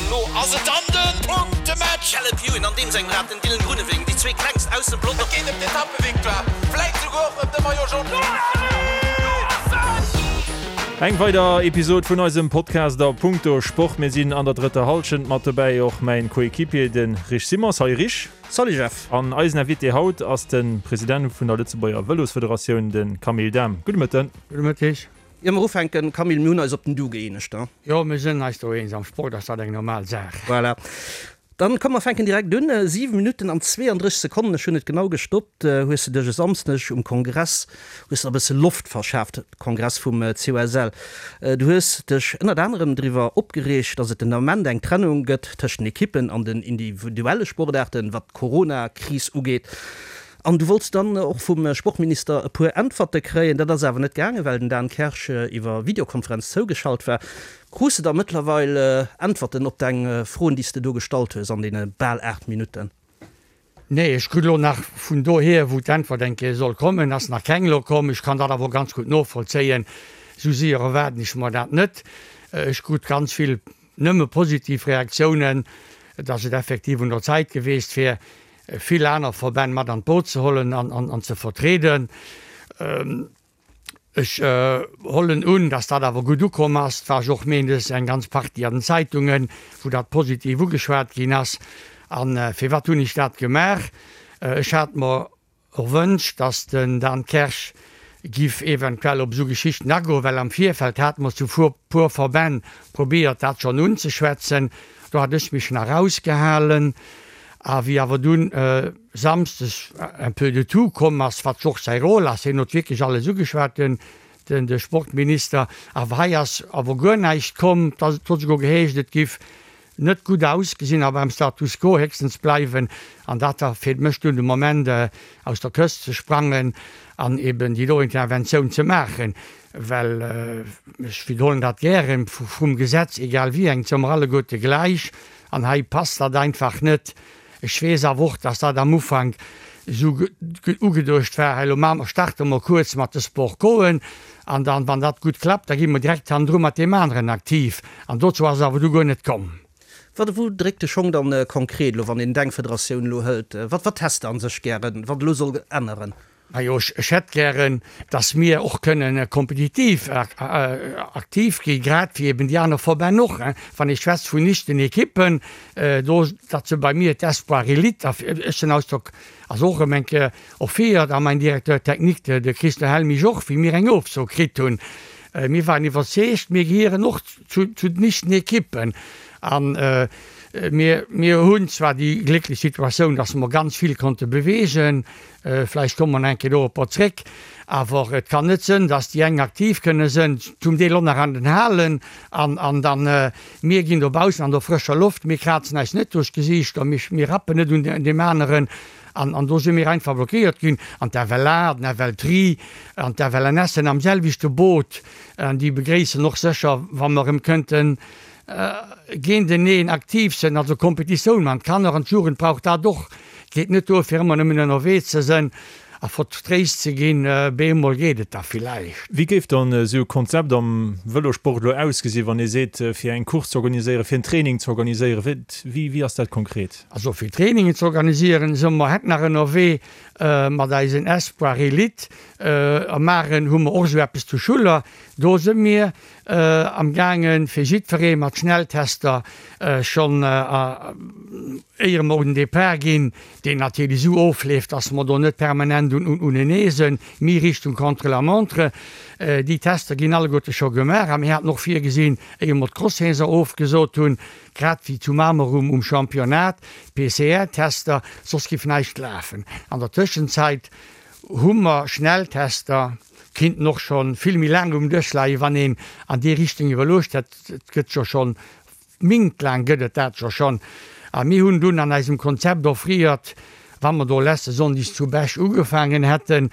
An lo ass et dann de Punktematch! Caleb Ewan an deem sengem Rad, den Dylan Groenewegen, déi zwee klengst aus dem Pelotong. Et geet ëm d'Etappevictoire, vläit souguer och ëm de Maillot Jaune. Eng weider Episod vun eisem Podcast a Punkto Sport. Mir sinn an der drëtter Hallschent, mat dobäi och mäin Coéquipier, de Rich Simons. Salut Rich. Salut Jeff. An eisen Invité haut ass de President vun der Lëtzebuerger Vëlosfederatioun, de Camille Dahm. Gudde Mëtten. Gudde Mëtteg. Ier mer ufänken, Camille, mir hunn eis op den Du gëeenegt, ne? Jo, mir sinn eis do eens. Am Sport ass dat eng normal Saach. Voilà. Dann komm mer fänken direkt un. 7 Minutten an 32 Sekonnen, ech hunn et genau gestoppt, hues de dech e Samsdeg um Kongress, hues der e bësse Loft verschaaft, Kongress vum COSL. Du hues dech ënnert anerem driwwer opgereegt, datt et den Ament eng Trennung gëtt tëscht den Ekippen an den individuelle Sportaarten, wat d'Corona-Kris ugeet. An du wollts dann och vum Sportminister e puer Äntwerte kréien. Dat ass awer net gaangen, well den Dan Kersch iwwer Videokonferenz zougeschalt war. Krus de da mëttlerweil Äntwerten op deng Froen, déi s de do gestallt hues an deene bal 8 Minutten? Nee, ech krut elo nach vun dohier, wou d'Äntwert eng Kéier soll kommen, ass nach keng elo komm. Ech kann dat awer och ganz gutt novollzéien. Esou séier erwaarden ech mer dat net. Ech krut ganz vill nëmme positiv Reaktiounen, dass et effektiv un der Zäit geweest wär, vill aner Verbänn mat an d'Boot ze hollen an ze vertrieden. Ech hollen un, dass dat awer gutt ukomm ass. Et war jo och méindes eng ganz Partie an den Zeitungen, wou dat positiv ugeschwat ginn ass. A firwat hunn ech dat gemaach? Ech hat mer erwënscht, dass den Dan Kersch giff eventuell op esou Geschichten agoen, well am Virfeld hate mer zu puer Verbänn probéiert dat schonn unzeschwätzen. Do hat ech mech nach rausgehalen. A wéi awer dunn Samsdes un peu de tout komm ass, wat jo och säi Rôle ass, hien huet wierklech alles ugeschwat, den de Sportminister, awer hei ass awer guer näischt komm, et huet esouguer geheescht, et giff net gutt ausgesinn a beim Status quo héchstens bleiwen. An dat war fir mech dunn de Moment, aus der Këscht ze sprangen an eben déi do Interventioun ze maachen, well, ech widderhuelen dat gären, vum Gesetz, egal wéi eng, si mer alleguerte gläich an hei passt dat einfach net. Ech weess awer och, dass dat am Ufank esou ugeduecht war, hei elo maache mer, starte mer kuerz mat de Sport Coen an dann, wann dat gutt klappt, da gi mer direkt hannendru mat deem aneren aktiv. An dozou ass et awer du guer net komm. Wat, wou dréckt de Schong dann konkret elo, wann een deng Federatioun elo hëlt? Wat, wat häss de an sech gären, wat elo soll änneren? Majo, ech hätt gären, dass mir och kënnen kompetitiv aktiv ginn, grad wéi eben déi aner Verbänn och. Wann ee schwätzt vun lichten Ekippen, do, dat se bei mir d'Espoir Elite, ech den Ausdrock ass och erëm eng Kéier offéiert, a mäin Directeur technique, de Christian Helmich och, wéi mir eng Ofso kritt hunn. Mir waren iwwerzeegt, mir gehieren och zu den lichten Ekippen. An mir, mir hunn zwar déi glécklech Situatioun, dass mer ganz vill konnte bewegen, Vläicht komme mer nach eng Kéier doropper zréck. Awer et kann net sënn, dass déi eng aktiv kënne sënn, zum Deel och nach an den Halen, an, an dann mir ginn dobaussen an der frëscher Loft, mir krazen eis net duerch d'Gesiichter, mir, mir rappen net un deem aneren. An, an do si mir einfach blockéiert ginn. An d'FLA, den FLTri an d'FLNS sënn am selwechte Boot. An déi begréissen och sécher, wa mer erëm kënnten géinteneen aktiv sënn, also Kompetitioun man. D'Kanner an d'Jugend brauch dat och. Geet net duer fir ëmmer nëmmen ënnerwee ze sënn a vertréist ze ginn. Bemol geet et da villäicht. Wéi géif dann esou e Konzept am Vëlosport elo ausgesinn, wann ee seet, fir eng Course ze organiséieren, fir en Training ze organiséieren? Wéi, wéi ass dat konkret? Also fir Trainingen ze organisieren, si mer hätt nach ënnerwee mat eisen Espoir Elite. Am Maren hu mer och esou eppes zu Schuller. Do si mir Am gaangen fir jiddweree mat Schnelltester schonn éier mer un den Depart ginn, deen natierlech esou ofleeft, dass mer do net permanent unenee sënn, mee Richtung Contre-la-montre. Déi Tester ginn alleguerte scho gemaach a mir haten och virgesinn, éier mer d'Cross-Saison ofgesot hunn, grad wéi zu Mamer um Championnat, PCR-Tester, soss giff näischt lafen. An der Tëschenzäit hu mer Schnelltester. Kinnten och scho vill méi laang um Dësch leien, wann een an déi Richtung iwwerluecht hätt. Et gëtt jo schonn, mintlaang gëtt et dat jo schonn. A mir hunn dunn an eisem Konzept offriert, wa mer do leste Sonndes zu Bech ugefaangen hätten,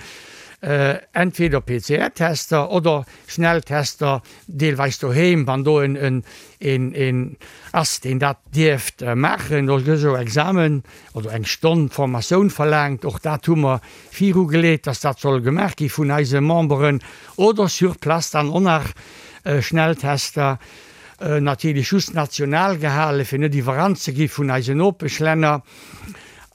entweder PCR-Tester oder Schnelltester, deelweis doheem, wann do en een ass, deen dat dierft maachen. Do gëtt jo Examen oder eng Stonn Formatioun verlaangt. Och dat hu mer virugeleet, dass dat soll gemaach gi vun eise Memberen oder sur place dann och nach Schnelltester. Natierlech just national gehalen, fir net iwwerrannt ze gi vun eisen Nopeschlänner.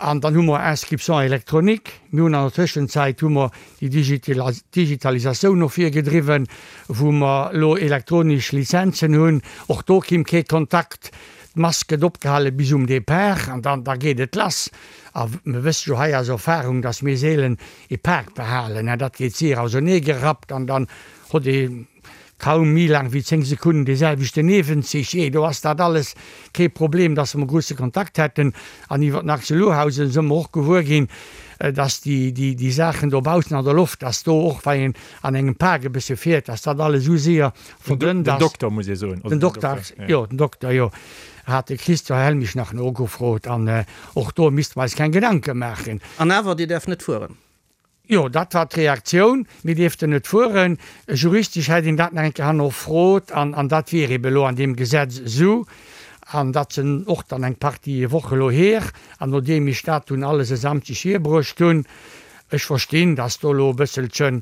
An dann hu mer Inscription électronique. Mir hunn an der Tëschenzäit hu mer déi Digitalisatioun no vir gedriwwen, wou mer elo elektronesch Lizenzen hunn. Och do kimm kee Kontakt. D'Mask gëtt opgehale bis um Depart an dann da geet et lass. A mir wësse jo hei aus Erfahrung, dass mir seelen ee Pak behalen. Dat geet séier auserneegerappt an dann hott ee Kaum méi laang wéi 10 Sekunnen dee selwechten Niewenzich. Jee, do ass dat alles kee Problem, dass mer grousse Kontakt hätten. An iwwer den Axel Lohausen së mer och gewuer ginn, dass déi, déi, déi Saachen dobaussen an der Loft, dass do och, wa een an engem Park e bësse fiert, dass dat alles esou séier verdënnt ass. Den Dokter, muss ee soen. Den Dokter, jo, den Dokter, jo, hat de Christian Helmich nach nogefrot. An och do misste mer eis keng Gedanke maachen. An awer, Dir däerft net fueren. Jo, dat war d'Reaktioun, mir dierften net fueren. Juristesch hätt een dat nach eng Kéier hannerfrot an an dat wier ebe elo an deem Gesetz esou. An dat sinn och dann eng Partie Woche elo hier. An nodeem ech dat dunn alles e Samschdeg hierbruecht hunn, ech verstinn, datt do elo e bësselche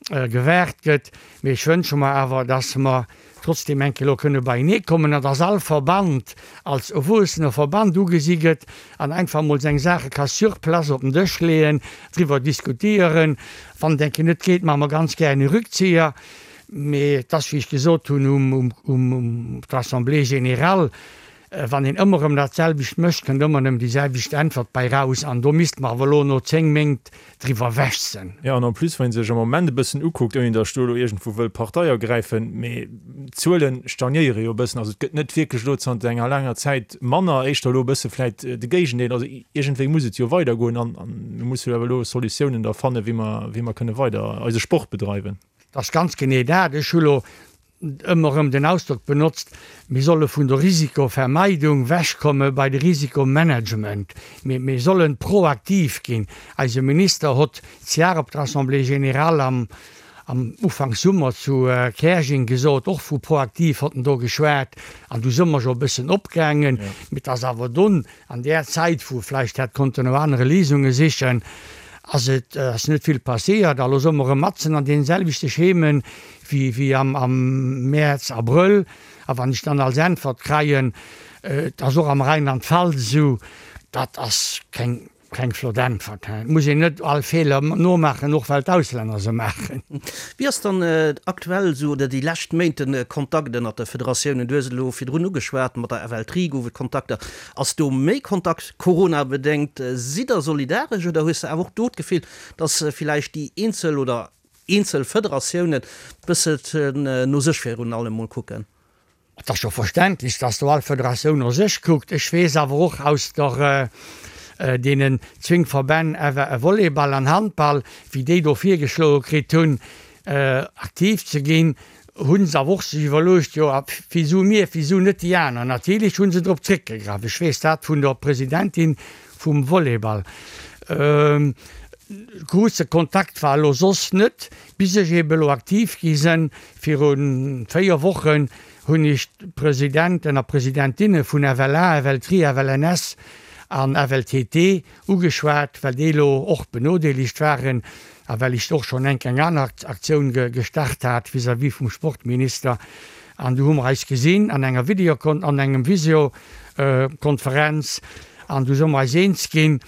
gewaart gëtt, mee ech wënsche mer awer, datt mer trotzdem eng Kéier elo kënne beienee kommen an dass all Verband als erwuessene Verband ugesi gëtt an einfach emol seng Saache ka sur place op den Dësch leeën, driwwer diskutieren. Wann et eng Kéier net geet, maache mer ganz gären e Rückzieher. Mee et ass, wéi ech gesot hunn um um der Assemblée générale, Wann een ëmmer erëm dat selwecht mécht, kënnt ëmmer nëmmen déi selwecht Äntwert bei raus. An do misste mer awer elo no 10 Méint driwwer ewech sinn. Jo, an en plus, wann ee sech am Moment e bëssen ukuckt, ouni datt ech do elo iergendwou wëll Partei ergräifen, mee d'Zuele stagnéiere jo e bëssen. Also et gëtt net wierklech elo zanter enger laanger Zäit manner, éischter elo e bësse vläicht de Géigendeel. Also iergendwéi muss et jo weidergoen an mir musse jo awer elo Solutiounen da fannen, wéi mer, wéi mer kënne weider eise Sport bedreiwen. Dat ass ganz genee dat. Ech hu lo ëmmer erëm den Ausdrock benotzt, mir solle vun der Risikovermeidung wechkomme bei de Risikomanagement. Mir, mir sollen proaktiv ginn. Eise Minister hott d'Jar op der Assemblée générale am, am Ufank Summer zu Käerjeng gesot, och vu proaktiv hott en do geschwat, an du se mer scho e bëssen opgaangen. Mee et ass awer dunn An där Zäit, wou vläicht hätt konnten no anere Léisunge sichen, ass et ass net vill passéiert. A lo soe mer erëm matzen an deene selwechte Schemen wéi wéi am am Mäerz, Abrëll. A wann ech dann als Äntwert kreien, et ass och am Rheinland-Pfalz esou, dat ass keng keng flott Äntwert. Et muss een net all Feeler nomaachen, och well d'Auslänner se maachen. Wéi ass dann aktuell esou oder déi lescht Méint de Kontakt ënnert de Federatiounen? Du hues et elo virdrun ugeschwat, mat der FLTRI gouf et Kontakter. Ass do méi Kontakt Corona-bedéngt? Sidd der solidaresch oder hues de awer och do d'Gefill, datt villäicht déi eenzel oder eenzel Federatiounen bësselchen no sech virun allem mol kucken? Et ass jo verständlech, dass do all Federatioun no sech kuckt. Ech weess awer och aus der deenen zwéng Verbänn Volleyball an Handball, wéi déi do virgeschloe kritt hunn, aktiv ze ginn, hu se awer och sech iwwerluecht, jo a wisou mir, wisou net déi aner? Natierlech hu se drop zréckgegraff. Ech weess dat vun der Presidentin vum Volleyball. Grousse Kontakt war elo soss net, bis ech eebe elo aktiv gi sinn. Viru 4 Wochen hunn ech d'Presidenten a Presidentinne vun FLA, FLTRI, FLNS an FLTT ugeschwat, well déi elo och benodeelegt waren a well ech och schonn enk eng aner Aktioun gestart hat vis-à-vis vum Sportminister. An du hu mer eis gesinn an enger Videokon an engem Visiokonferenz an du si mer eis eens ginn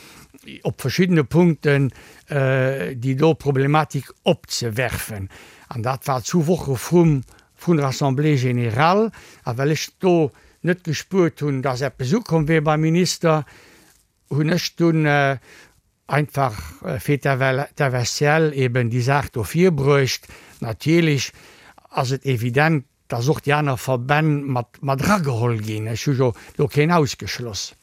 op verschiddene Punkten, déi do Problematik opzewerfen. An dat war zu Woche vrum vun der Assemblée générale. A well ech do net gespuert hunn, dass eppes ukomm wier beim Minister, hunn ech dunn einfach fir d'FSCL eben déi Saach do virbruecht. Natierlech ass et evident, dass och déi aner Verbänn mat mat erageholl ginn. Ech hu jo do keen ausgeschloss.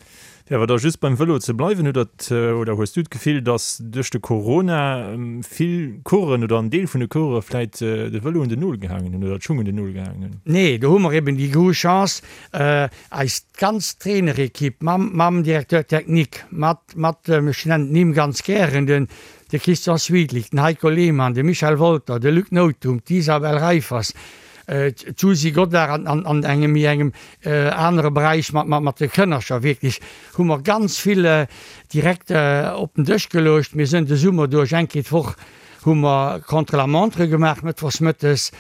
Fir awer da just beim Vëlo ze bleiwen, hutt Der oder hues du d'Gefill, dass duerch de Corona vill Coureuren oder en Deel vun de Coureure vläit de Vëlo un den Nol gehaangen hunn oder d'Schung un den Nol gehaangen hunn? Nee, do hu mer eben déi grouss Chance, eis ganz Trainerequipe mam mam Directeur technique, mat mat, ech nennen d'Nimm ganz gären, den de Christian Swidlich, den Heiko Lehmann, de Michel Wolter, de Luc Nothum, d'Isabelle Reiffers, D'Susi Godart an an engem méi engem anere Beräich mat mat de Kënnercher. Wierklech hu mer ganz vill direkt op den Dësch geluecht. Mir sënn de Summer duerch eng Kéier d'Woch hu mer Contre-la-montre gemaach mëttwochs mëttes,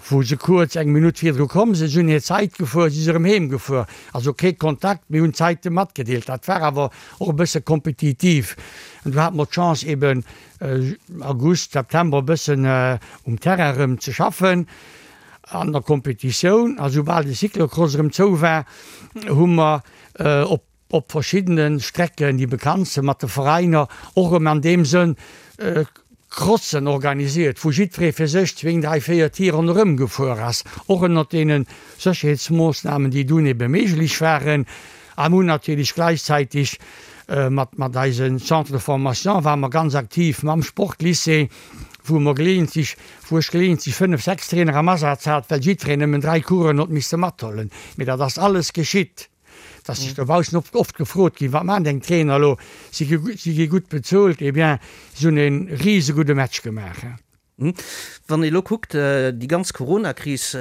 wou se kuerz eng Minutt virdru komm sinn, si hunn hir Zait gefuer, si si erëm heem gefuer. Also kee Kontakt, mir hunn d'Zaite matgedeelt. Dat war awer och e bësse kompetitiv. An du hate mer d'Chance eben August, September e bëssen um Terrain erëm ze schaffen an der Kompetitioun. A soubal de Cyclocross erëm zou war, hu mer op op verschiddene Strecken, déi bekannt sinn, mat de Veräiner och erëm an deem Sënn Crossen organisiert, wou jiddweree fir sech zwéin, dräi, véier Tier ronderëm gefuer ass, och ënnert deene Sécherheetsmoossnamen, déi dunn ebe méiglech waren. A mir hunn natierlech gläichzäiteg mat mat eise Centre de formation ware mer ganz aktiv mam Sportlycée, wou mer geleeëntlech, wou ech geleeëntlech fënnef, sechs Trainer am Asaz hat, well jiddwereen nëmmen dräi Coursen huet misse mathuelen. Mee dat ass alles geschitt. Et ass sech dobaussen oft oft gefrot ginn, Wat maachen deng Trainer elo? Si gi si gi gutt bezuelt. Eh bien, si hunn e risegudde Match gemaach. Wann ee elo kuckt, déi ganz Coronakris,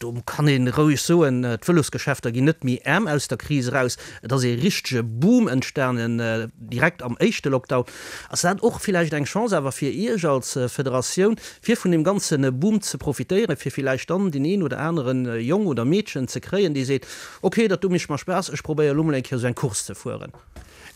do kann ee roueg soen, d'Vëlosgeschäfter ginn net méi aarm aus der Kris eraus. Et ass ee richtege Boom entstanen direkt am éischte Lockdown. Ass dat och villäicht eng Chance awer fir Iech als Federatioun, fir vun deem ganze Boom ze profitéieren, fir villäicht dann deen een oder anere Jong oder Meedchen ze kréien, dee seet, Ok, dat do mécht mer Spaass, ech probéier elo mol eng Kéier esou eng Course ze fueren.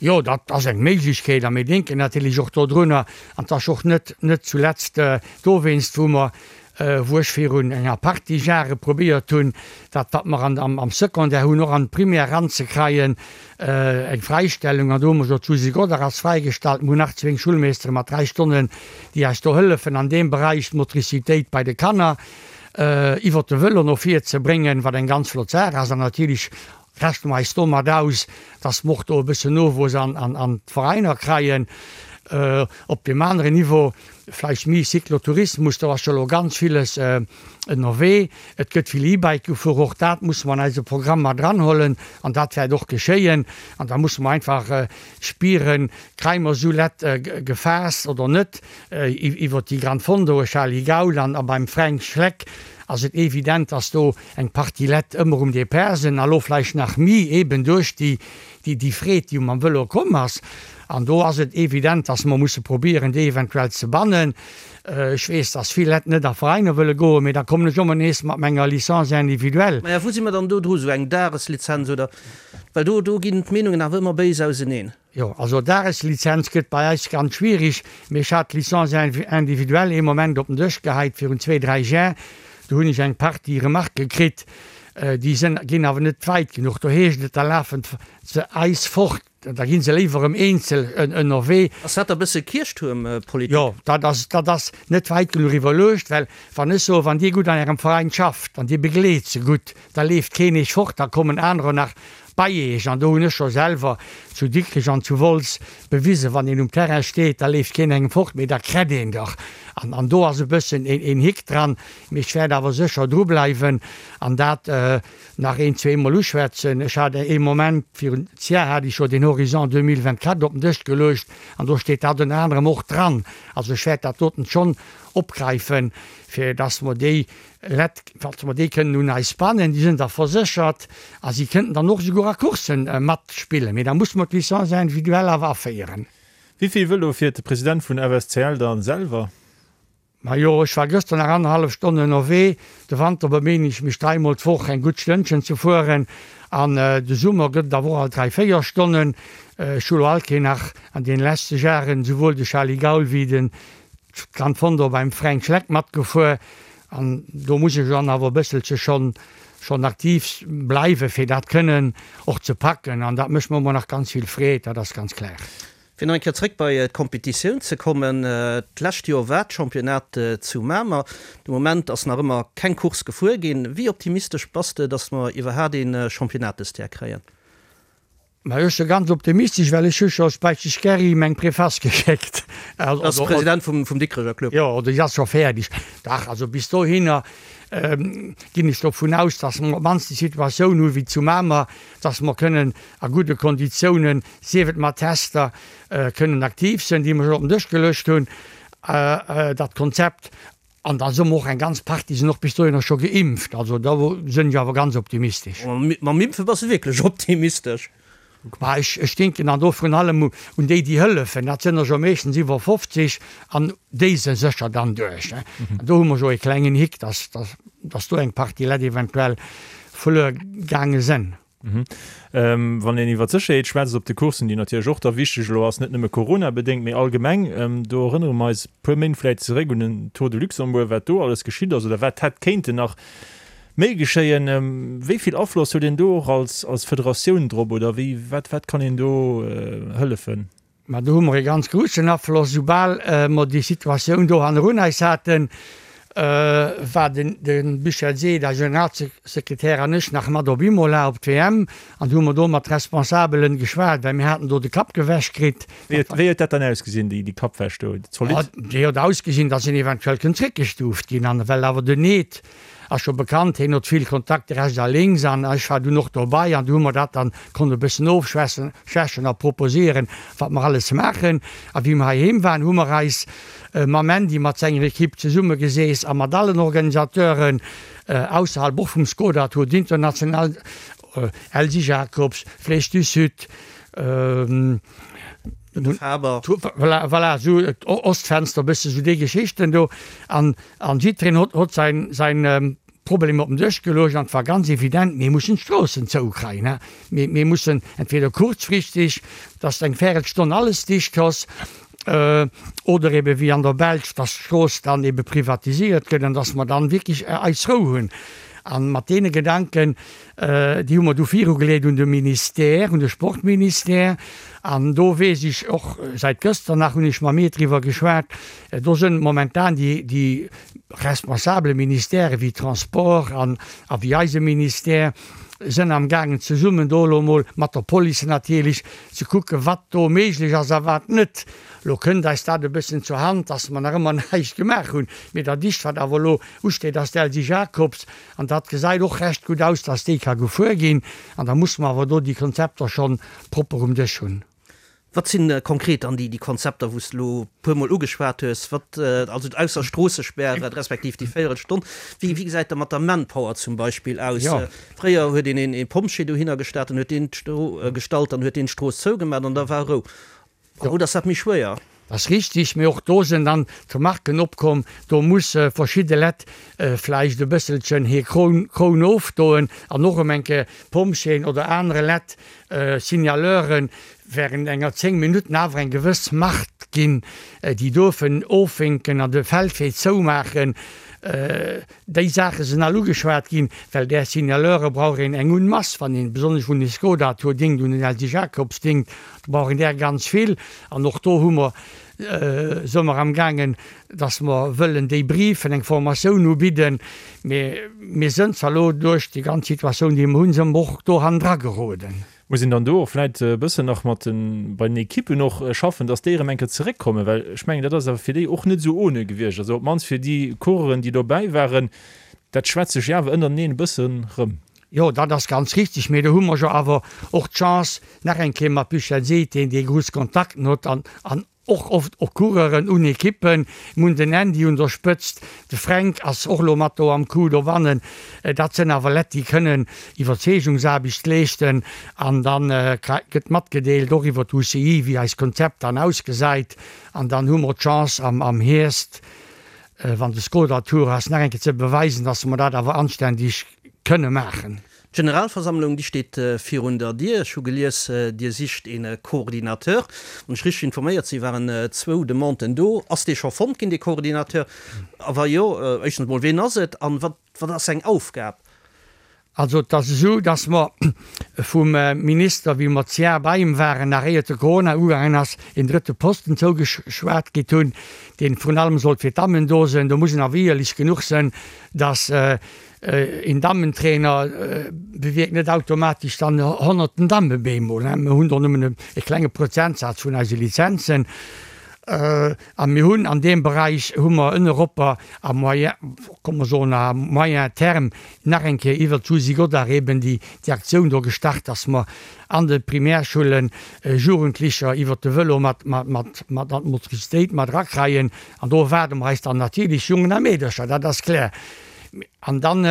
Jo, dat ass eng Méiglechkeet a mir denken natierlech och dodrunner. An et ass och net, net zuletzt dowéinst, wou mer, wou ech virun enger Partie Jahre probéiert hunn, dat wat mer an, am Secondaire hunn, och an d'Primaire eranzekreien, eng Fräistellung. An do hu mer jo d'Susi Godart ass fräigestallt, mir hunn nach zwéng Schulmeestere mat 3 Stonnen, déi eis do hëllefen an deem Beräich, d'Motricitéit bei de Kanner. iwwert de Vëlo no vir ze bréngen, wat eng ganz flott Saach ass. An natierlech rechne mer eis domat aus, dass mer och do e bëssen Nowuess an d'Veräiner kreien. Op deem aneren Niveau vläicht méi Cyclotourismus, do ass jo elo ganz villes ënnerwee. Et gëtt vill E-Bike gefuer, och dat musse mer an eise Programm mat eranhuelen an dat wäert och geschéien. An da musse mer einfach spieren, Kréie mer esou Lett gefaasst oder net? Iwwer déi Gran Fondo, Charly Gaul an a beim Fränk Schleck ass et evident, dass do eng Partie Lett ëmmer um Depart sinn a lo vläicht nach mi eben duerch déi déi Freed, déi mam Vëlo komm ass. An do ass et evident, dass mer musse probieren, déi eventuell ze bannen. Ech weess, dass vill Lett net a Veräiner wëlle goen, mee da kommen ech ëmmer nees mat menger Licence individuelle. Maja, wou si mer dann do dru? Esou eng Dageslizenz oder? Well do do ginn d'Meenungen awer ëmmer béis auseneen. Jo, also Dageslizenz gëtt bei eis ganz schwierig, mee ech hat d'Licence individuelle ee Moment op den Dësch geheit virun zwee, dräi Jar. Do hunn ech eng Partie Remarquë kritt, déi sënn, ginn awer net wäit genuch. Do heescht et, da lafen se eis fort, da gi se léiwer erëm eenzel ënnerwee. Ass dat da bësse Kierchtuermpolitik? Jo, dat ass, dat ass net wäit genuch iwwerluecht, well wann ech soen, wann Dir gutt an Ärem Veräin schafft an Dir begleet se gutt, da leeft keen Iech fort, da kommen anerer nach bei Iech. An do hunn ech scho selwer zu Dikrech an zu Wolz bewisen, wann een um Terrain steet, da leeft keen engem fort, mee da krett een dach. An, an do ass e bëssen een Hick dran, mee ech wäert awer sécher drubleiwen an dat nach een, zweemol uschwätzen. Ech hat ee Moment, virun Jar hat ech jo den Horizon 2024 op den Dësch geluecht an do steet dat ënner anerem och dran. Also ech wäert dat doten schonn opgräifen, fir dass mer déi Lett, falls mer déi kënnen un eis bannen, déi sinn da verséchert a si kënnten dann och esouguer a Coursse matspillen, mee da musse mer d'Licence individuelle awer aféieren. Wéi vill Vëlo fiert de President vun FSCL dann selwer? Majo, ech war gëschter nach annerhallef Stonn ënnerwee. De Wanter beméinen ech mech dräimol d'Woch eng gutt Stënnchen ze fueren an de Summer gëtt et awer och alt dräi, véier Stonnen. Ech hu lo alt keen nach an deene leschte Jaren esouwuel de Charly Gaul wéi den Gran Fondo beim Fränk Schleck matgefuer an do muss ech dann awer e bësselche schonn schonn aktiv bleiwen, fir dat kënnen och ze packen an dat mécht mer ëmmer nach ganz vill Freed, dat ass ganz klar. Fir nach eng Kéier zréck bei d'Kompetitioun ze kommen, D'lescht Joer war d'Championnat zu Mamer. De Moment ass nach ëmmer keng Course gefuer ginn. Wéi optimistesch bass de, datt mer iwwerhaat ee Championnat dëst Jar kréien? Mä ech si ganz optimistesch, well ech hu scho Speiteg Gerry meng Preface geschéckt. Dat ass de President vum Dikrecher Club. Jo, déi ass scho fäerdeg. Dach, also bis dohinner ginn ech dovun aus, datt mer op d'mannst déi Situatioun hu wéi zu Mamer, datt mer kënnen a gudde Konditiounen, sief et mat Tester, kënnen aktiv sinn, déi mer scho op den Dësch geluecht hunn, dat Konzept. An da soe mer och, eng ganz Partie sinn och bis dohinner scho geimpft. Also do sinn ech awer ganz optimistesch. Mam Impfe bass de wierklech optimistesch? Ma ech, ech denken dann do vrun allem un déi, déi hëllefen. Dat sënn der jo meeschtens iwwer 50 an déi se sécher dann duerch. An do hu mer jo e klengen Hick, dass, dass, dass do eng Partie Leit eventuell verluer gaange sënn. Wann een iwwer d'Sécherheet schwätzt op de Courssen, déi natierlech och da wichteg elo ass, net nëmme Corona-bedéngt, mee allgemeng, do erënnere mer eis e puer Méint vläicht zeréck un den Tour de Luxembourg, wat do alles geschitt ass oder wat hätt kéinten nach méi geschéien. Wéi vill Afloss huet een do och als als Federatioun drop oder wéi, wat wat kann een do hëllefen? Mä do hu mer e ganz groussen Afloss. Soubal mer déi Situatioun do hannerun eis haten, war den de Michel Seed, eise Generalsekretär, an ech nach mat op Imola op d'WM an hu mer do mat Responsabelen geschwat, well mir haten do de Kapp gewäsch kritt. Wéi huet dat dann ausgesinn, déi Kappwäsch do? Zolidd? Déi huet ausgesinn, datt een eventuell kënnt zréckgestuuft ginn. An well awer den Eed Ass scho bekannt, heen hot vill Kontakte rechts a lénks an ech war dunn och dobei an du hu mer dat dann konnt e bëssen ofschwächen schwächen a proposieren wat mer alles maachen. A wéi mer heiheem waren hu mer eis mam Andy mat senger Equipe zesumme geseess a mat allen Organisateuren ausserhalb och vum Skoda Tour d'International, Elsy Jacobs, Flèche du Sud, Faber. Voilà, voilà, esou Ostfenster, e bësse sou déi Geschichten do an An jiddwereen hott hott säin säin Problem op den Dësch geluecht an et war ganz evident, mir mussen d'Stroossen zoukreien, hä. Mir mir mussen entweder kurzfristig, dass eng Värelstonn alles dicht ass, oder ebe wéi an der Belsch, dass d'Strooss dann ebe privatisiert gëtt an dass mer dann wierklech eis Rou hunn. An mat deene Gedanken, déi hu mer du virugeleet un de Ministère, un de Sportministère. An do weess ech och, säit gëschter nach hunn ech mam Meet driwwer geschwat, Do sënn momentan déi, déi responsable Ministèrë wéi Transport an a wéi eise Ministère sënn am gaangen zesummen do elo emol mat der Police natierlech ze kucken, wat do méiglech ass a wat net. Elo kënnt eis dat e bëssen zur Hand, dass mer nach ëmmer näischt gemaach hunn. Mee dat ischt, wat awer elo usteet, ass d'Elsy Jacobs an dat gesäit och recht gutt aus, dass déi ka gefuer ginn. An da musse mer awer do déi Konzepter schonn propper um Dësch hunn. Wat sinn konkret dann déi Konzepter, wou s de elo e puermol ugeschwat hues, wat, also ausser Stroossespäre respektiv déi Véierelstonn, wéi gesäit dat mat der Manpower zum Beispill aus? Fréier huet een ee Pompjee dohinner gestat, dann huet deen gestallt, dann huet deen d'Strooss zougemat an da war Rou. Haut ass dat méi schwéier. Dat ass richtig, mee och do sinn dann d'Remarken opkomm, do musse verschidde Lett vläicht e bësselchen hir Kroun ofdoen an och erëm eng Kéier Pompjeeën oder anere Lett, Signaleuren, während enger 10 Minutten awer eng gewëss Macht ginn, déi duerfen ofwénken an de Feldwee zoumaachen. Déi Saache sinn all ugeschwat ginn, well där Signaleure brauch een eng un masse, wann een besonnesch un de Skoda Tour dinkt, un den Elsy Jacobs dinkt, do brauch een där ganz vill. An och do hu mer, se mer amgaangen, dass mer wëllen déi briefen, eng Formatioun ubidden. Mee mir sënn zwar elo duerch déi ganz Situatioun, déi mer hunn, sënn mer och do hannendra geroden. Muss een dann do och vläit e bëssen nach mat den, bei den Ekippen och schaffen, dass déi erëm eng Kéier zeréckkommen? Well ech mengen, dat ass awer fir déi och net esou ohne gewiescht. Also op d'mannst fir déi Coureuren, déi dobäi waren, dat schwätzt sech jo awer ënnerteneen e bëssen rëm. Jo, dat ass ganz richtig. Mee do hu mer jo awer och d'Chance, nach eng Kéier mat Michel Seed, deen dee grouss Kontakten huet an, an Och oft och Coureuren un Ekippen. Mir hunn den Andy un der Spëtzt, de Fränk ass och elo mat do am Coup dobannen. Dat sënn awer Lett déi kënnen Iwwerzeegungsaarbecht leeschten an dann gëtt matgedeelt och iwwer d'UCI wéi eist Konzept dann ausgesäit an dann hu mer d'Chance am Hierscht, wann de Skoda Tour ass, nach eng Kéier ze beweisen, dass mer dat awer anständig kënne maachen. D'Generalversammlung, déi steet virun der Dier. Ech hu gelies, Dir sicht ee Coordinateur. Wann ech richteg informéiert sinn, waren zwou Demanden do. Ass dee scho fonnt ginn, dee Coordinateur? A wa jo, éischtens emol, ween ass et an wat ass seng Aufgab? Also et ass esou, datt mer vum Minister, wéi mer d'Jahr bei him waren, nach éiert de Corona ugaangen ass, een drëtte Posten zougeschwat kritt hunn, dee vrun allem sollt fir d'Dammen do sinn. Do muss een awer éierlech genuch sinn, datt Een Dammentrainer bewierkt net automatesch dann honnerten Damme bemol. Mir hunn do nëmmen e klenge Prozentsaz vun eise Lizenzen. A mir hunn an deem Beräich hu mer ënneropper à moyen, komm mer soen à moyen terme nach eng Kéier iwwert d'Susi Godart eben déi Aktioun do gestart, dass mer an de Primärschullen Jugendlicher iwwert de Vëlo mat an d'Motricitéit mat erakreien. An do erwaarde mer eis dann natierlech Jongen a Meedercher, dat ass kloer. An dann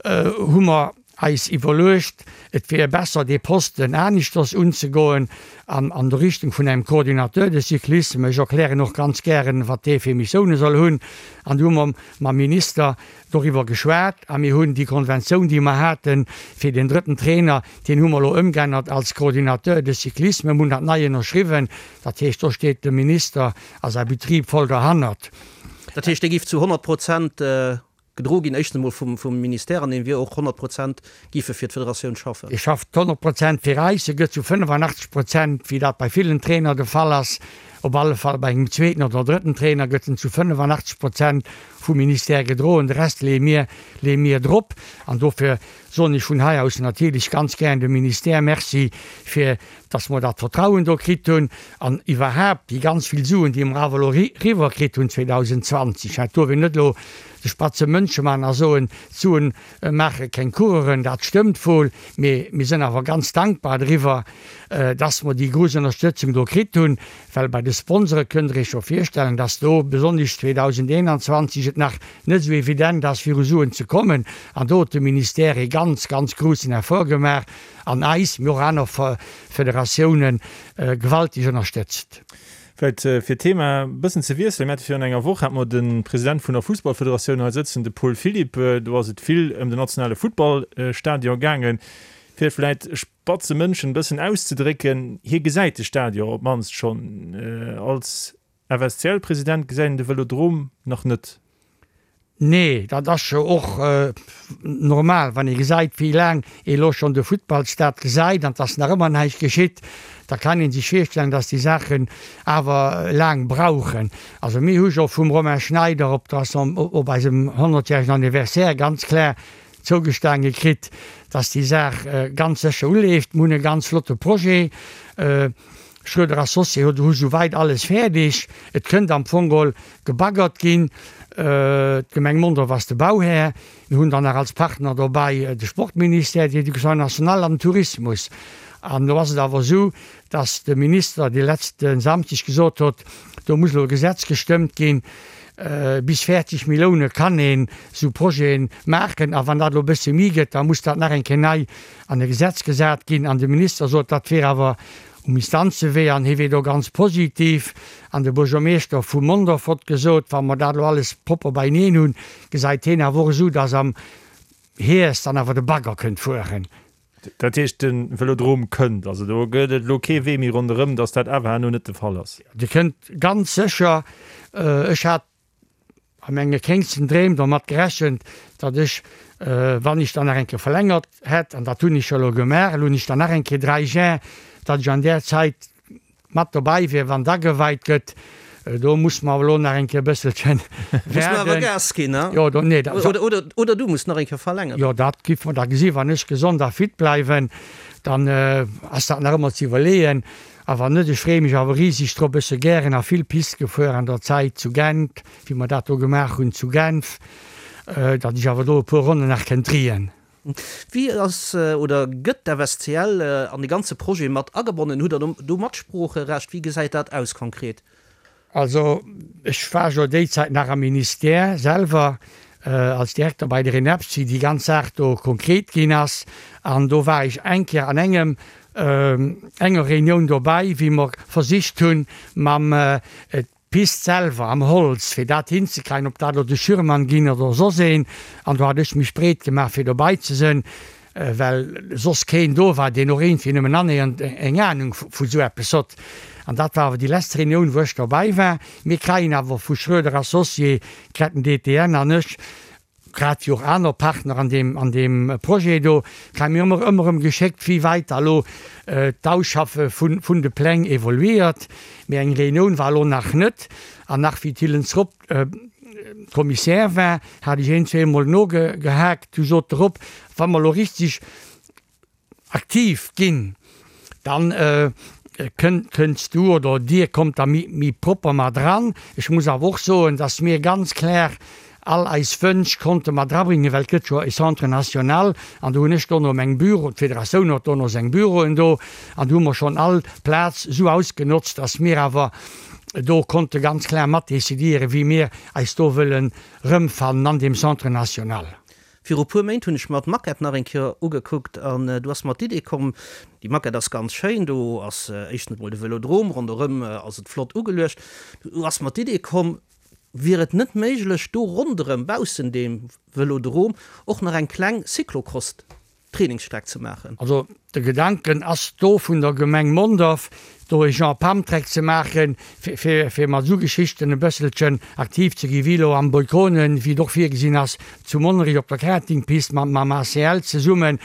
hu mer. eis iwwerluecht, et wier besser dee Posten aneschters unzegoen an an der Richtung vun engem Coordinateur de cyclisme. Ech erklären och ganz gären, wat dee fir Missioune soll hunn. An du hu mer mam Minister doriwwer geschwat a mir hunn déi Konventioun, déi mer haten fir deen drëtten Trainer, deen hu mer elo ëmgeännert als Coordinateur de cyclisme, mir hunn dat nei ënnerschriwwen. Dat heescht, do steet de Minister a säi Betrib voll derhannert. Dat heescht, dee géif zu 100 Prozent gedro ginn, éischtens emol vum Ministère, an dee wier och 100 Prozent géif e fir d'Federatioun schaffen. Dee schafft 100 Prozent fir eis. E gëtt zu 85 Prozent, wéi dat bei villen Trainer de Fall ass, op alle Fall bei engem zweeten oder drëtten Trainer gëtt en zu 85 Prozent vum Ministère gedroen. De Rest leeë mir, leeë mir drop. An dofir soen ech vun hei aus natierlech ganz gären dem Ministère Merci fir dass mer dat Vertrauen do kritt hunn an iwwerhaapt déi ganz vill Suen, déi mer awer elo eriwwer kritt hunn 2020. Et duerf een net elo de spatze Mënsche man a soen, d'Suen maache keng Coureuren, dat stëmmt wuel, mee mir sinn awer ganz dankbar driwwer, dass mer déi grouss Ënnerstëtzung do kritt hunn, well bei de Sponsore kënnt Der Iech jo virstellen, dass do besonnesch 2021 et nach net esou evident ass, fir u Suen ze kommen. An do huet de Ministère ee ganz, ganz groussen Effort gemaach an eis, mee och aner Federatiounen, gewaltig ënnerstëtzt. Vläicht fir d'Thema e bëssen ze wiesselen, Mir hate virun enger Woch hate mer de President vun der Fussballfederatioun hei sëtzen, de Paul Philipp. Do ass et vill ëm den nationale Futtballstadion gaangen. Fir et vläicht spatze Mënschen e bëssen auszedrécken, hie gesäit de Stadion op d'mannst schonn. Als FSCL-President gesäit een de Vëlodrom nach net. Nee, dat ass jo och normal, wann ee gesäit, wéi laang ee lo schonn de Futtballstade gesäit an dass nach ëmmer näischt geschitt, da kann ee sech virstellen, dass déi Saachen awer laang brauchen. Also mir hu jo vum Romain Schneider op der op eisem honnertjäregen Anniversaire ganz klar zougestaange kritt, dass déi Saach ganz sécher uleeft. Mir hunn e ganz flotte Projet. Schroeder Associés huet hu souwäit alles fäerdeg. Et kënnt am Fong geholl gebaggert ginn. D'Gemeng Mondorf ass de Bauhär. Mir hunn dann nach als Partner dobäi de Sportministère, d'Education nationale an den Tourismus. An elo ass et awer esou, datt de Minister de letzte Samschdeg gesot huet, do muss elo e Gesetz gestëmmt ginn, bis 40 Millioune kann een esou Projete maachen. A wann dat elo e bësse méi gëtt, da muss dat nach eng Kéier nei an e Gesetz gesat ginn. An de Minister sot, dat wier awer um Instanzewee an hie wier do ganz positiv. An de Buergermeeschter vu Mondorf hott gesot, wa mer dat elo alles propper beineen hunn, gesäit hien awer och esou, datt am Hierscht dann awer de Bagger kënnt fueren. Dat heescht, de Vëlodrom kënnt. Also do gëtt et elo kee Wee méi ronderëm, datt dat awer herno net de Fall ass. Dee kënnt ganz sécher. Ech hat a menge kéngsten Dreem dermat gerechent, datt ech, wann ech dann nach eng Kéier verlängert hätt, an dat hunn ech jo elo gemaach, elo hunn ech dann nach eng Kéier 3 Jar, datt ech an där Zäit mat dobäi wier, wann et ageweit gëtt. Do muss mer awer elo nach eng Kéier e bësselchen Muss mer awer waarden. Gas ginn, ne? Jo, do, nee, dat. Oder, oder, oder du muss nach eng Kéier verlängeren. Jo, dat giff mer da gesinn. Wann ech gesond a fit bleiwen, dann ass dat nach ëmmer ze iwwerleeën. A wann net, ech freeë mech awer riseg drop, ech se gären a vill Piste gefuer an der Zäit zu Gent, wéi mer dat do gemaach hunn zu Genf, datt ech awer do e puer Ronnen nach kënnt driien. Wéi ass oder gëtt d'FSCL an de ganze Projet mat agebonnen? Hutt Der do Matsproocherecht? Wéi gesäit dat aus konkret? Also ech war jo déi Zäit nach am Ministère selwer als Direkter bei der ENEPS, wéi déi ganz Saach do konkret ginn ass. An do war ech eng Kéier an engem, enger Reunioun dobäi, wéi mer versicht hunn, mam d'Pist selwer am Holz, fir dat hinzekreien, ob dat elo de Schürmann ginn oder soss een. An do hat ech mech breet gemaach, fir dobäi ze sënn. Well soss keen do war, deen och iergendwéi nëmmen annähernd eng Ahnung vu sou eppes hott. An dat war awer déi lescht Reunioun, wou ech dobäi war. Mir kreien awer vu Schroeder Associés, Ketten DTN an ech, grad wéi och aner Partner an deem, an deem Projet do, kreie mir ëmmer, ëmmer erëm geschéckt, wéi wäit da lo d'Ausschaffe vun, vun de Pläng evoluiert. Mee eng Reunioun war elo nach net. An nach wéi d'Hillens Roth Kommissär war, hat ech een, zweemol nogehaakt. Du sot de Rob, wa mer elo richtig aktiv ginn, dann kënns du oder dir kommt da méi propper mat eran. Ech muss awer och soen, dass mir ganz klar all eis Wënsch konnte mat erabringen, well et gëtt jo e Centre national an do hunn ech dono meng Büro, d'Federatioun huet dono seng Büroen do an do hu mer schonn all Plaz esou ausgenotzt, dass mir awer do konnte ganz klar mat decidéieren, wéi mir eis do wëllen erëmfannen an deem Centre national. Viru puer Méint hunn ech mer d'Maquette nach eng Kéier ugekuckt an du ass mer d'Idee komm, déi Maquette ass ganz schéin, do ass éischtens emol de Vëlodrom, ronderëm ass et flott ugeluecht. Du ass mer d'Idee komm, wier et net méiglech do ronderëm, baussen deem Vëlodrom, och nach eng kleng Cyclocross Trainingsstreck ze maachen. Also de Gedanken ass do vun der Gemeng Mondorf, do e Genre Pumptrack ze maachen, fir fir mat esou Geschichten e bësselchen aktiv ze ginn, wéi elo am Boykonen, wéi et och virgesinn ass zu Monnerech op der Kartingpist mam mam ACL zesummen.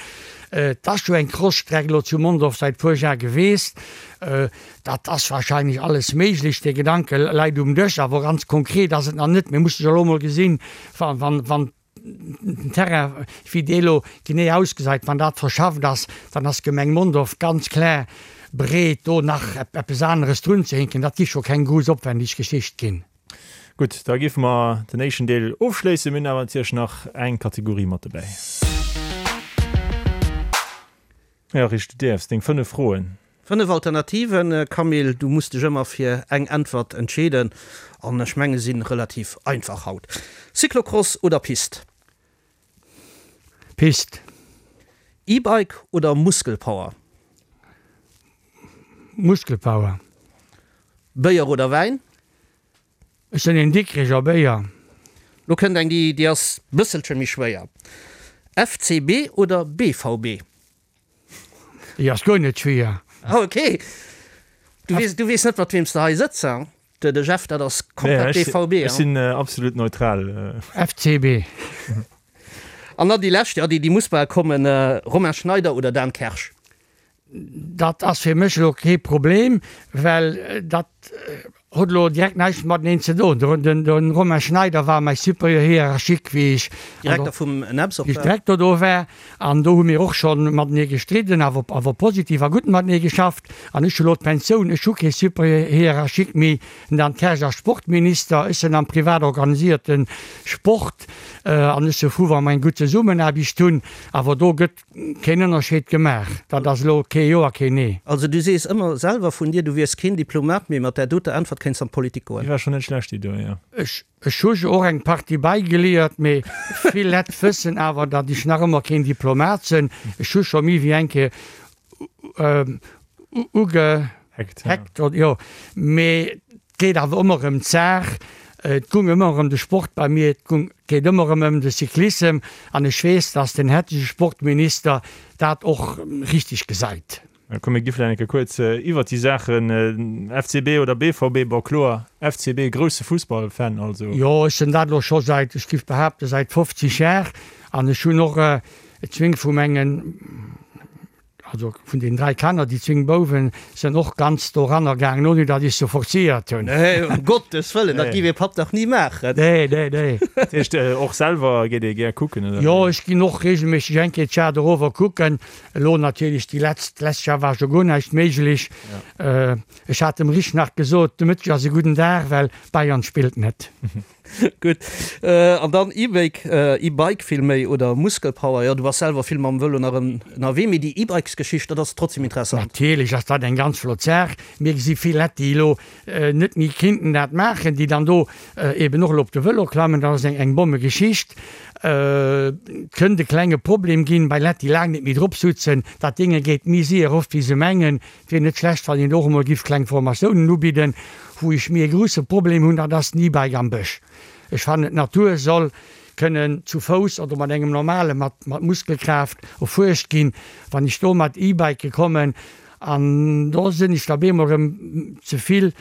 Et ass jo eng Cross-Streck elo zu Mondorf säit puer Jar geweest. Dat ass wahrscheinlech alles méiglech. Dee Gedanke läit um Dësch, awer ganz konkret ass et nach net. Mir musse jo elo emol gesinn, wann wann den Terrain, wéi dee elo genee ausgesäit, wann dat verschafft ass, dann ass d'Gemeng Mondorf ganz kloer bereet, do nach eppes aneres drunzehinken. Dat géif scho keng grouss opwändig Geschicht ginn. Gutt, da géife mer den éischten Deel ofschléissen. Mir hunn awer natierlech nach eng Kategorie mat dobäi. Jo, Rich, du däerfs deng 5 Froen. 5 Alternativen, Camille, du muss dech ëmmer fir eng Äntwert entscheeden an ech menge sinn relativ einfach haut. Cyclocross oder Pist? Pist. E-Bike oder Muskelpower? Muskelpower. Béier oder Wäin? Ech sinn een Dikricher Béier. Lo kënnt eng déi déi ass bësselche méi schwéier. FCB oder BVB? Déi ass guer net schwéier. Ah ok. Du weess, du weess net mat weem s de hei sëtz, hein? De de Jeff, dat ass komplett BVB, hein? Ech sinn absolut neutral. FCB. An dann déi lescht, jo déi déi muss bal kommen, Romain Schneider oder Dan Kersch? Dat ass fir mech elo kee Problem, well dat huet elo direkt näischt mateneen ze doen. De Romain Schneider war mäi Supérieur hiérarchique, wéi ech Direkter vum NEPS och war. Direkter do war. An do hu mir och scho matenee gestridden, awer awer positiv a gutt matenee geschafft. An ech hu elo d'Pensioun, ech hu kee Supérieur hiérarchique méi. Den Dan Kersch ass Sportminister, ech sinn am privat organisierte Sport an ech si frou, wa mer eng gutt Zesummenaarbecht hunn. Awer do gëtt Keen Ënnerscheed gemaach. Dat ass elo kee Jo a keen Nee. Also du sees ëmmer selwer vun dir, du wiers keen Diplomat, mee mat där doter Äntwert kéints an d'Politik goen. Déi war schon net schlecht, déi do, jo. Ech ech hu jo och eng Partie bäigeliert, mee vill Lett wëssen awer, datt ech nach ëmmer keen Diplomat sinn. Ech hu scho méi wéi eng Kéier ugeheckt, jo, mee Et geet awer ëmmer ëm d'Saach, et gung ëmmer ëm de Sport bei mir, et gung, geet ëmmer erëm ëm de Cyclissem an ech weess, dass den hettege Sportminister dat och richtig gesäit. Komm mir gi vläicht eng Kéier kuerz iwwert déi Saachen, FCB oder BVB, bon kloer FCB, grousse Fussballfan also. Jo, ech sinn dat elo scho säit, ech giff behaapten, säit 50 Jar an ech hunn och zwéng vu mengen, Also vun den 3 Kanner, déi zwéng Bouwen sënn och ganz doranner gaangen, ouni datt ech se forcéiert hunn. Nee, um Gottes Wëllen, dat giff ee Papp dach ni maachen. Nee, nee, nee. Dat heescht, och selwer geet ee gär kucken, oder? Jo, ech ginn och regelméisseg eng Kéier d'Jar dorower kucken. Elo natierlech déi letzt, d'lescht Jar war scho guer näischt méiglech. Ech hat dem Rich nach gesot, de Mëtteg ass e gudden Dag, well Bayern spillt net. Gutt. An dann E-Bike, E-Bike villméi, oder Muskelpower. Jo, du bass selwer vill mam Vëlo nach ënnerwee, mee déi E-Bikes-Geschicht, dat ass trotzdem interessant. Natierlech ass dat eng ganz flott Saach. Mir gesi vill Lett, déi elo net méi kinnten dat maachen, déi dann do eben och elo op de Vëlo klammen. Dat ass eng Bommegeschicht. Et kënnt e klenge Problem ginn bei Lett, déi laang net méi drop sutzen. Dat Dénge geet méi séier erof, wéi se mengen. Wier net schlecht wann een och emol giff kleng Formatiounen ubidden. Wou ech méi e grousse Problem hunn, dat ass den E-Bike am Bësch. Ech fannen d'Natur soll kënnen zu Fouss oder mat engem normale mat mat Muskelkraaft erfuerscht ginn. Wann ech do mat E-Bike kommen an do sinn ech da beemol erëm ze vill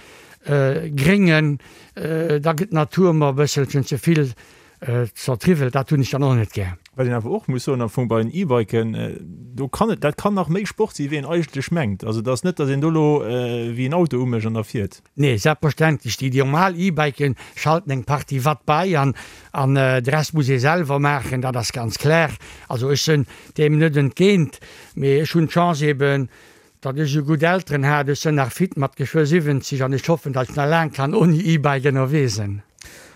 Gréngen, da gëtt d'Natur mer e bësselchen ze vill Zertriwwelt, dat hunn ech dann och net gär. Wat een awer och muss soen am Fong bei den E-Biken, do kann et, dat kann nach méi Sport si wéi een eigentlech mengt. Also et ass net, datt een do elo wéi en Auto umécht an da fiert. Nee, selbstverständlech. Déi normal E-Biken schalten eng Partie Watt bei an an de Rest muss ee selwer maachen, dat ass ganz klar. Also ech sinn deem net entgéint, mee ech hunn d'Chance eben, datt ech esou gutt Elteren hat. Ech sinn nach fit mat geschwë 70 an ech hoffen, datt ech nach laang kann ouni E-Bike ënnerwee sinn.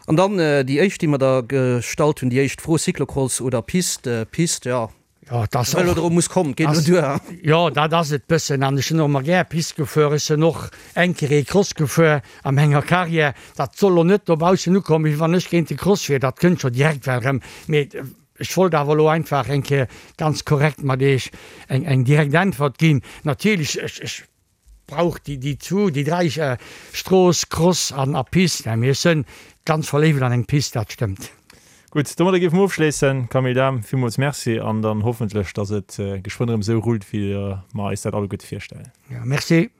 An dann déi éischt, déi mer da gestallt hunn, déi éischt Fro, Cyclocross oder Piste? Piste, jo. Jo, et ass och. Vëlodrom muss kommen, et geet elo duer. Jo, dat ass et bëssen. An ech sinn och ëmmer gär Piste gefuer. Ech sinn och eng Kéier ee Cross gefuer a menger Carrière. Dat soll elo net dobaussen ukommen, wéi wann ech géint de Cross wier. Dat kënnt scho direkt well erëm. Mee. Ech wollt awer elo einfach eng Kéier ganz korrekt mat Iech eng, eng direkt Äntwert ginn. Natierlech, ech, ech brauch déi, déi zwou, déi dräi, Strooss, Cross an a Pist. Mä ech sënn ganz verléift an eng Pist, dat stëmmt. Gutt, domadder géife mer ofschléissen. Camille Dahm, villmools Merci an dann hoffentlech, dass et geschwënn erëm esou rullt, wéi mer eis dat alleguerte virstellen. Jo, merci.